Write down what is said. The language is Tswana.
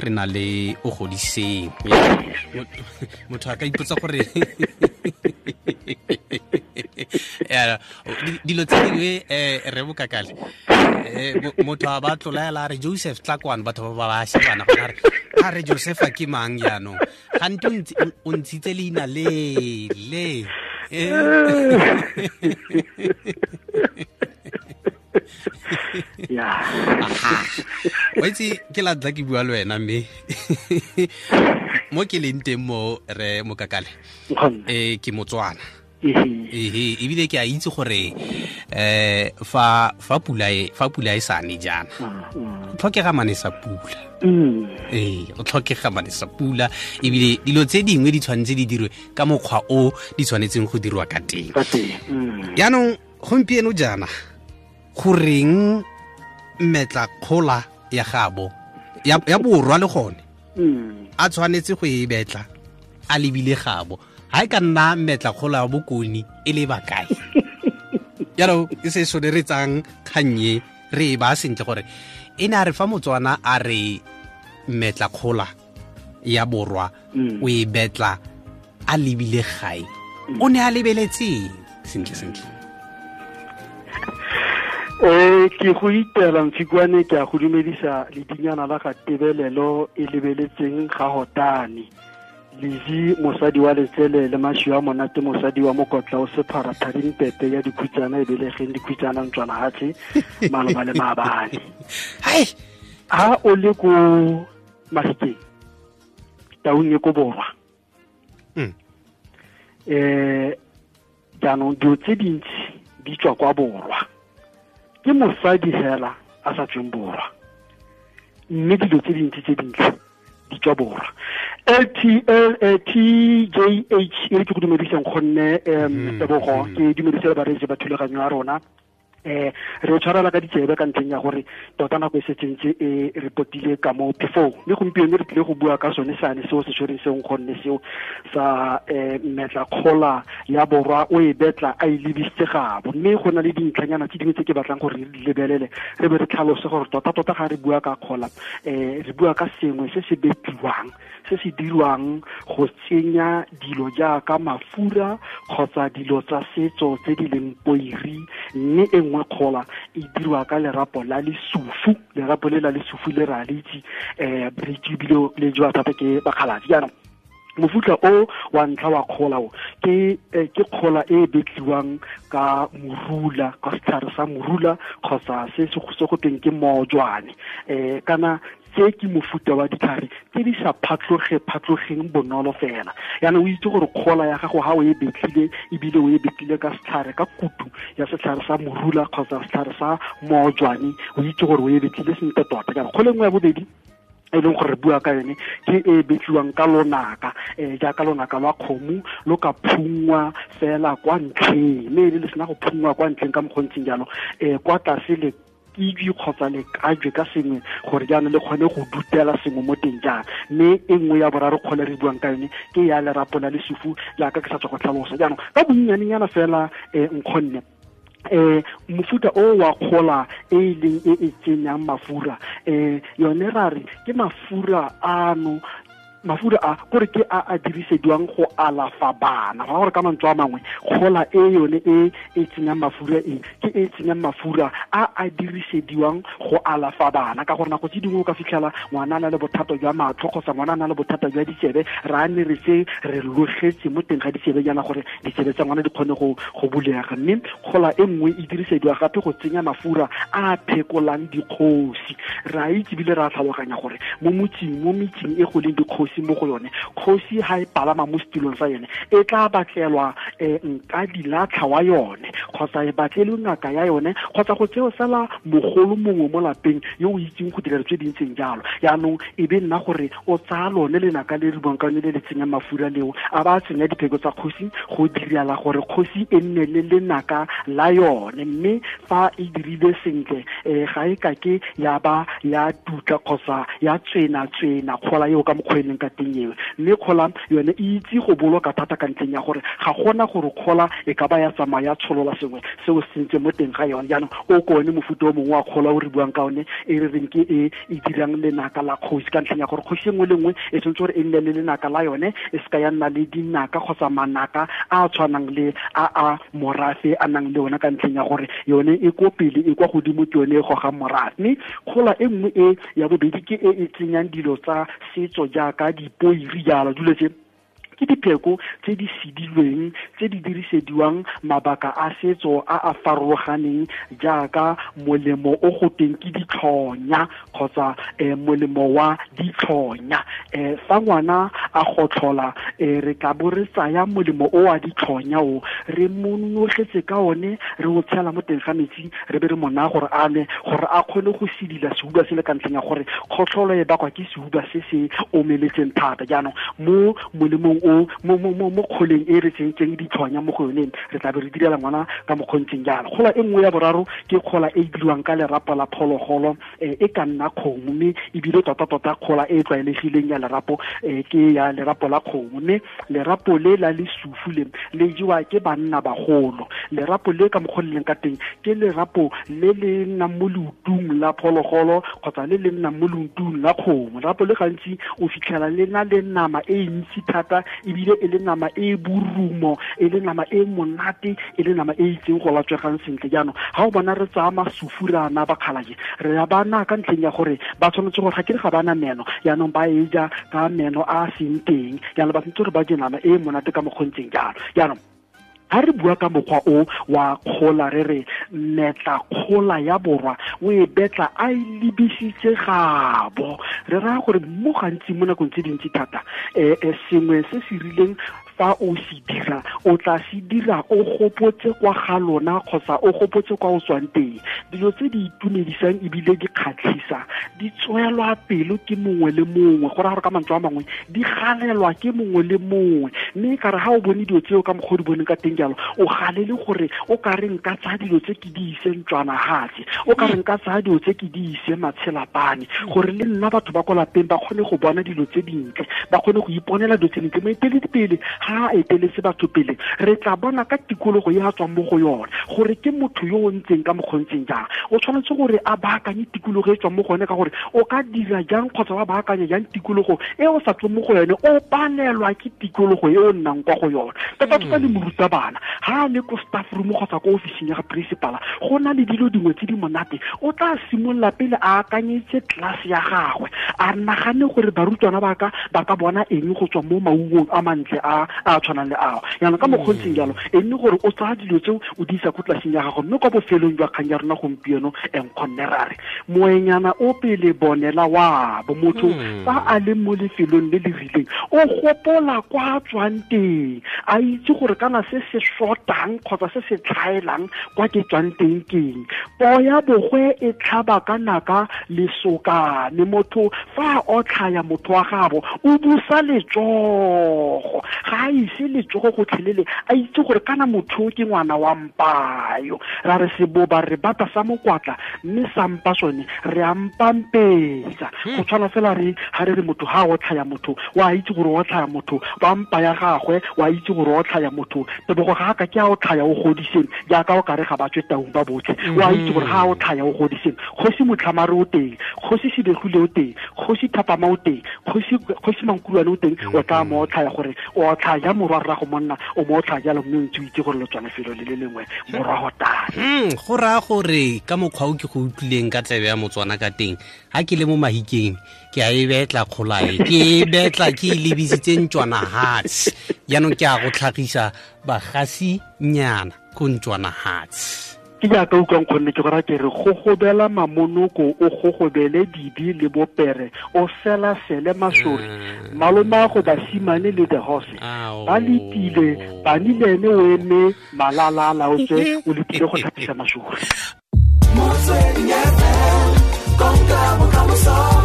Re na le o godiseng motho a ka ipotsa gore dilo tse dingwe re bokakale motho a ba tlolaela a re Joseph tla kwano, batho ba ba shebana gona a re Joseph a ke mang jaanong, gante o ntshitse leina le le wa itse ke la tla ke bua le wena, mme mo ke leng teng mo re Mokakale ke Motswana, ebile ke a itse gore fa pula e sa ne jaana go tlhokega mane sa pula. Go tlhokega mane sa pula, ebile dilo tse dingwe di tshwanetse di dirwe ka mokgwa o di tshwanetseng go dirwa ka teng. Jaanong gompieno jaana goreng mmetla kgola ya gabo ya borwa le gone a tshwanetse go e betla a lebile gabo, ha e ka nna mmetla kgola ya bokoni e le bakae? Jaanong e se soneretsang kgannye re e ba sentle gore e ne a re fa Motswana a re mmetla kgola ya borwa o e betla a lebile gae, o ne a lebeletseng sentle sentle? Ke go itela Mfikwane, ke a go dumedisa ledinyana la ga tebelelo e lebeletseng ga hotane Lizzy mosadi wa letsele le mashi wa monate mosadi wa mokotla o sephara tharing pepe ya dikhutsana e belegeng dikhutsana ntswana hatshe maloba le maabane. Ha o le ko Mafikeng taung e ko borwa, jaanong dilo tse dintsi di tswa kwa borwa, ke mosadi hela a sa tsweng borwa, mme dilo tse dintsi tse dintle di tswa borwa. TJH e ke go dumediseng gonne Tebogo, ke dumedise le bareetsi ba thulaganyo ya rona. Re tshwarela ka ditsebe ka ntlheng ya gore tota nako e setsentse e re potile ka mo phefong, mme gompieno re tlile go bua ka sone seane seo se tshwereng seo gonne seo sa mmetla kgola ya borwa o e betla a e lebisitse gabo. Mme go na le dintlhanyana tse dingwe tse ke batlang gore re di lebelele re be re tlhalose gore tota tota ga re bua ka kgola, re bua ka sengwe se se betliwang, se se dirwang go tsenya dilo jaaka mafura kgotsa dilo tsa setso tse di leng poiri, mme e nngwe kgola e dirwa ka lerapo la lesufu. Lerapo le la lesufu le ra le itse, re itse ebile le jewa thata ke bakgaladi. Jaanong mofuta o wa ntlha wa kgola o ke kgola e betliwang ka morula, ka setlhare sa morula kgotsa se se go tweng ke mojwane, kana tse ke mofuta wa ditlhare tse di sa phatlogeng bonolo fela. Jaanong o itse gore kgola ya gago ha o e betlile, ebile o e betlile ka setlhare, ka kutu ya setlhare sa morula kgotsa setlhare sa mojwane, o itse gore o e betlile sentle tota. Jaanong kgola e nngwe ya bobedi e leng gore re bua ka yone ke e betliwang ka lonaka, jaaka lonaka lwa kgomo lo ka phungwa fela kwa ntlheng, mme e le sena go phungwa kwa ntlheng ka mokgontseng jalo, kwa tlase le kidwi kgotsa le kajwe ka sengwe gore jaanong le kgone go dutela sengwe mo teng jang. Mme e nngwe ya boraro kgole re buang ka yone ke ya lerapo la lesufu, jaaka ke sa tswa go tlhalosa. Jaanong ka bonnyanenyana fela nkgonne mofuta o wa kgola e leng e e tsenyang mafura, yone ra re ke mafura ano, mafura a gore ke a a dirisediwang go alafa bana. Go gore ka mantswe a mangwe kgola e yone e e tsenyang mafura e ke e tsenyang mafura a a dirisediwang go alafa bana, ka gore nako tse dingwe o ka fitlhela ngwana a na le bothata jwa matlho kgotsa ngwana a na le bothata jwa ditsebe, ra ne re se re logetse mo teng ga ditsebe jaana gore ditsebe tsa ngwana di kgone go bulega. Mme kgola e nngwe e dirisediwa gape go tsenya mafura a phekolang dikgosi. Re a itse ebile re a tlhaloganya gore mo metseng e go leng dikgosi mo go yone, kgosi ha e palama mo setilong sa yone e tla batlelwa nka dilatlha wa yone kgotsa e batlelwe ngaka ya yone kgotsa go tseo fela mogolo mongwe mo lapeng yo o itseng go dira tse di ntseng jalo. Jaanong e be nna gore o tsaya lone lenaka le re buang ka lone le le tsenyang mafura leo, a ba tsenya dipheko tsa kgosi go direla gore kgosi e nne le lenaka la yone. Mme fa e dirile sentle, ga e ka ke ya ba ya tutla kgotsa ya tswena kgola eo ka mokgwa e leng ka teng eo. Mme kgola yone e itse go boloka thata ka ntleng ya gore ga gona gore kgola e ka ba ya tsamaya tsholola sengwe seo se ntse mo teng ga yone. Jaanong o ke one mofuta o mongwe wa kgola o re buang ka one, e re reng ke e e dirang lenaka la kgosi, ka ntlheng ya gore kgosi e nngwe le nngwe e tshwanetse gore e nne le lenaka la yone, e seka ya nna le dinaka kgotsa manaka a a tshwanang le a a morafe a nang le one, ka ntlheng ya gore yone e ko pele, e kwa godimo, ke yone e gogang morafe. Mme kgola e nngwe e ya bobedi ke e e tsenyang dilo tsa setso jaaka dipoiri jalo, dilo tse ke dipheko tse di sedilweng tse di dirisediwang mabaka a setso a a farologaneng, jaaka molemo o go teng ke ditlhonya kgotsa molemo wa ditlhonya. Fa ngwana a gotlhola, re tla bo re tsaya molemo o wa ditlhonya o re monogetse ka one, re o tshela mo teng ga metsi, re be re mo naya gore a nwe, gore a kgone go sedila sehuba se le, ka ntlheng ya gore kgotlholo e bakwa ke sehuba se se omeletseng thata. Jaanong mo molemong o mo kgoleng e re tsentseng ditlhonya mo go yone, re tla be re direla ngwana ka mokgontseng jalo. Kgola e nngwe ya boraro ke kgola e e diriwang ka lerapo la phologolo, e ka nna kgomo, mme ebile tota-tota kgola e e tlwaelegileng ya lerapo ke ya lerapo la kgomo. Mme lerapo le la lesufu le le jewa ke banna bagolo. Lerapo le ka mokgwa le leng ka teng ke lerapo le le nnang mo leotung la phologolo kgotsa le le nnang mo leotung la kgomo. Lerapo le gantsi o fitlhela le na le nama e ntsi thata, ebile e le nama e borumo, e le nama e monate, e le nama e itseng go latswegang sentle. Jaanong ga o bona re tsaya masufu re ana bakgalake, re ya bana ka ntlheng ya gore ba tshwanetse gore ga ke re ga bana meno, jaanong ba e ja ka meno a a seng teng, jaanong ba tshwanetse gore ba je nama e monate ka mokgontseng jalo. Jaanong ha re bua ka mokgwa o wa kgola, re re metla kgola ya borwa o e betla a e lebisitse gabo, re raya gore mo gantsi mo nakong tse dintsi thata sengwe se se rileng fa o se dira, o tla se dira o gopotse kwa ga lona kgotsa o gopotse kwa o tswang teng. Dilo tse di itumedisang ebile di kgatlhisa di tswelwa pelo ke mongwe le mongwe, go raya gore ka mantswe a mangwe di galelwa ke mongwe le mongwe. Mme ka re ga o bone dilo tseo ka mokgwa o di boneng ka teng jalo, o galele gore o ka re nka tsaya dilo tse ke di ise ntlwanagatse, o ka re nka tsaya dilo tse ke di ise matshelapane, gore le nna batho ba ko lapeng ba kgone go bona dilo tse dintle, ba kgone go iponela dilo tse dintle. Moeteledipele ha a eteletse batho pele, re tla bona ka tikologo e a tswang mo go yone gore ke motho yo o ntseng ka mokgontseng jang. O tshwanetse gore a baakanye tikologo e tswang mo go yone, ka gore o ka dira jang kgotsa wa baakanya jang tikologo e o sa tsweng mo go yone, o palelwa ke tikologo e o nnang kwa go yone. Tota-tota le morutabana ha a le ko staff room kgotsa ko ofising ya ga principala, go na le dilo dingwe tse di monate, o tla simolola pele a akanyetse class ya gagwe, a nagane gore barutwana ba ka bona eng go tswa mo maungong a mantle a a tshwanang le ao. Jaanong ka mokgontseng jalo e nne gore o tsaya dilo tseo o di isa ko tlaseng ya gago. Mme kwa bofelong jwa kgang ya rona gompieno, nkgonne ra re moenyana o pele bonela wa bo motho fa a le mo lefelong le le rileng, o gopola kwa tswang teng, a itse gore kana se se shotang kgotsa se se tlhaelang kwa ke tswang teng keng. Poo ya bogwe e tlhaba ka naka lesokane, motho fa a otlhaya motho wa gabo o busa letsogo, ga a ise letsogo gotlhelele, a itse gore kana motho ke ngwana wa mpayo. Ra re seboba re bata sa mokwatla, mme sa mpa sone re a mpampetsa. Go tshwana fela re ha re re motho ha a otlhaya motho, wa itse gore o otlhaya motho wa mpa ya gagwe, wa itse gore o otlhaya motho. Tebogo ga ka ke a otlhaya o godiseng jaaka o kare ga ba tswe taung ba botlhe, wa itse gore ga a otlhaya o godiseng. Kgosi Motlhamare o teng, kgosi Sebegile o teng, kgosi Thapama o teng, kgosi Mankulwane o teng, o tla mo otlhaya gore o otlhaya morwa rrago monna, o mo otlhaya jalo, mme o ntse o itse gore lo tswa lefelo le le lengwe morago tane. Go raya gore ka mokgwa o ke go utlwileng ka tsebe ya Motswana ka teng, ha ke le mo Mahikeng ke a e betla kgolae, ke e betla ke e lebisitse ntlwanahatse. Jaanong ke a go tlhagisa bagasi nyana ko ntlwanahatse. Ke jaaka utlwang kgonne ke go raya ke re gogobela mamonoko, o gogobele dibi le bopere, o sela-sele masori, malomago basimane le the horse ba letile, bani le ene o eme malala a laotswe, o letile go tlhapisa masori. Motsweding FM, konka bokamoso.